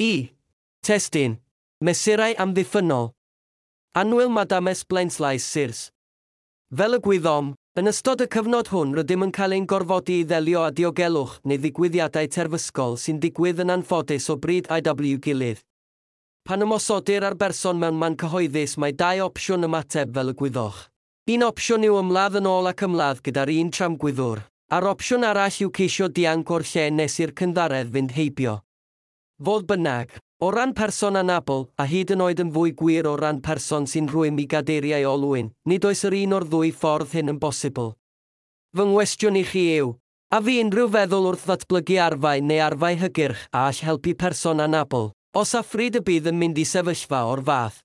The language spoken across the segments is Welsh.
I. Testun. Mesurau amddiffynnol. Annwyl Madame Blaenslaes Sirs. Fel y gwyddom, yn ystod y cyfnod hwn rydym yn cael ein gorfodi i ddelio â diogelwch neu ddigwyddiadau terfysgol sy'n digwydd yn anffodus o bryd i'w gilydd. Pan ymosodir ar berson mewn man cyhoeddus, mae dau opsiwn ymateb, fel y gwyddoch. Un opsiwn yw ymladd yn ôl ac ymladd gyda'r un tramgwyddwr, a'r opsiwn arall yw ceisio dianc o'r lle nes i'r cynddaredd fynd heibio. Fodd bynnag, o ran person anabl, a hyd yn oed yn fwy gwir o ran person sy'n rhwym i gadeiriau olwyn, nid oes yr un o'r ddwy ffordd hyn yn bosibl. Fy nghwestiwn i chi yw, a fu unrhyw feddwl wrth ddatblygu arfau neu arfau hygyrch a all helpu person anabl, os a phryd y bydd yn mynd i sefyllfa o'r fath?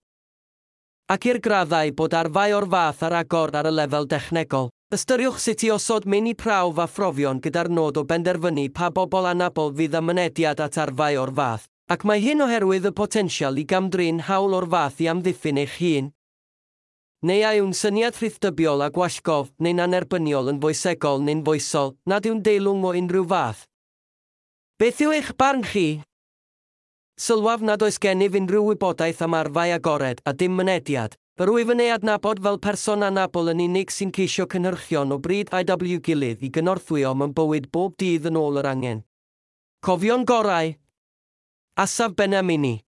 Ac i'r graddau bod arfau o'r fath ar agor ar y lefel dechnegol, ystyriwch sut i osod meini prawf a phrofion gyda'r nod o benderfynu pa bobl anabl fydd â mynediad at arfau o'r fath, ac mae hyn oherwydd y potensial i gamdrin hawl o'r fath i amddiffyn eich hun. Neu a yw'n syniad rhithdybiol a gwallgof neu'n annerbyniol yn foesegol neu'n foesol, nad yw'n deilwng o unrhyw fath? Beth yw eich barn chi? Sylwaf nad oes gennyf unrhyw wybodaeth am arfau agored a dim mynediad. Yr wyf yn ei adnabod fel person anabl yn unig sy'n ceisio cynhyrchion o bryd i'w gilydd i gynorthwyo mewn bywyd bob dydd yn ôl yr angen. Cofion gorau. Asaf Benamini.